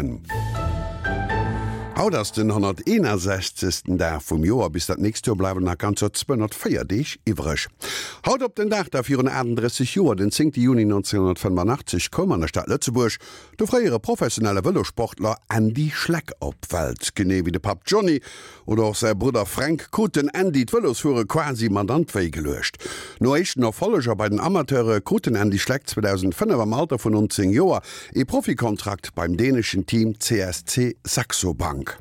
Moien. Haut ass den 161. Dag vum Joer. Bis dat nächst Joer bleiwen nach ganzer 204 Deeg iwwreg. Haut op den Dag da virun 38 Joer, den 10 Juni 1985, koum an der Stad Lëtzebuerg de fréiere professionelle Vëlosportler Andy Schleck op d'Welt. Genee wéi de Papp Johnny oder och säi Brudder Fränk krut den Andy d'Vëlosfuere quasi mat an d'Wéi geluecht. No éischten Erfolleger bei den Amateure krut den Andy Schleck 2005 am Alter vun 19 Joer ee Profikontrakt beim däneschen Team CSC Saxo Bank.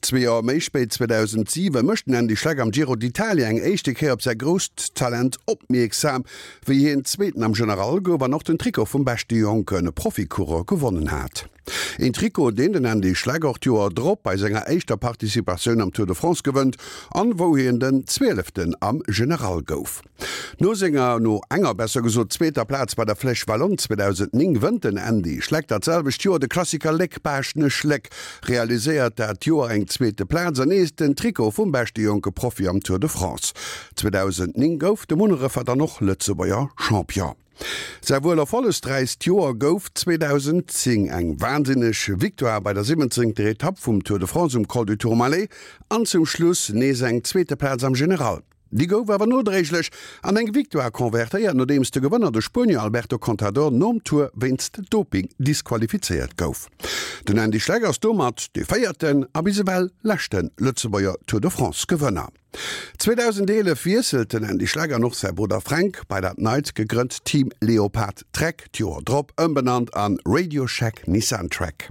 Zwee Joer méi spéit, 2007, mécht den Andy Schleck am Giro d'Italia eng éischte Kéier op säi grousst Talent opmierksam, wéi hien Zweeten am General gouf an och den Trikot vum beschte jonke Proficoureur gewonnen hat. Een Trikot, deen den Andy Schleck och d'Joer drop bei senger éischter Participatioun am Tour de France gewënnt an wou hien den Zwieleften am General gouf. No senger, no enger besser gesot, zweeter Plaz bei der Flèche Wallonne 2009 wënnt den Andy Schleck dat selwecht Joer de Klassiker Léck-Baaschtnech-Léck, realiséiert dat Joer eng zweete Plaz an nees den Trikot vum beschte jonke Profi am Tour de France. 2009 gouf de Munnerefer dann och Lëtzebuerger Champion. Säi wuel erfollegräichst Joer gouf 2010, eng wahnsinneg Victoire bei der 17. Etapp vum Tour de France um Col du Tourmalet an zum Schluss nees eng zweete Plaz am General. Déi gouf awer nodréiglech an eng Victoire konvertéiert, nodeems de Gewënner, de Spuenier Alberto Contador, nom Tour wéinst Doping disqualifizéiert gouf. Den Andy Schleck ass domat dee véierten a bis ewell leschte Lëtzebuerger Tour de France-Gewënner. 2011 wiesselt den Andy Schleck an och säi Brudder Fränk bei dat neit gegrënnt Team Leopard Trek, d'Joer drop ëmbenannt an RadioShack Nissan Trek.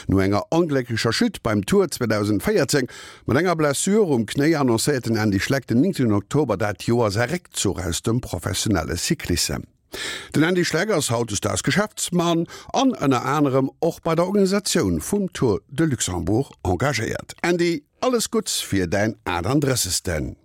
No enger onglécklecher Chute beim Tour 2014 mat enger Blessure um Knéi annoncéiert den Andy Schleck den 9 Oktober dat Joer säi Réckzuch aus dem professionelle Cyclissem. Den Andy Schleck ass hautdesdaags Geschäftsmann an ënner anerem och bei der Organisatioun vum Tour de Luxembourg engagéiert. Andy, alles Gutts fir däin 38.